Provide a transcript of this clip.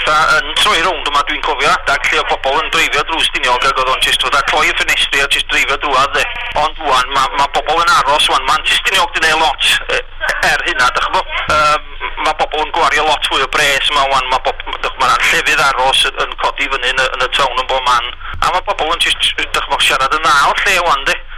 petha yn troi rownd yma. Dwi'n cofio adag lle o bobl yn dreifio drwy Stiniog ac oedd o'n jyst fatha cloi y ffenestri a jyst dreifio drwadd de. Ond wan, ma bobl yn aros wan, mae Stiniog di neud lot er hynna, dych ch'bo. Ma bobl yn gwario lot fwy o bres yma wan, mae ma llefydd aros yn codi fyny yn y town yn bob man. A mae bobl yn jyst, dych ch'bo, siarad yn dda o'r lle wan, de.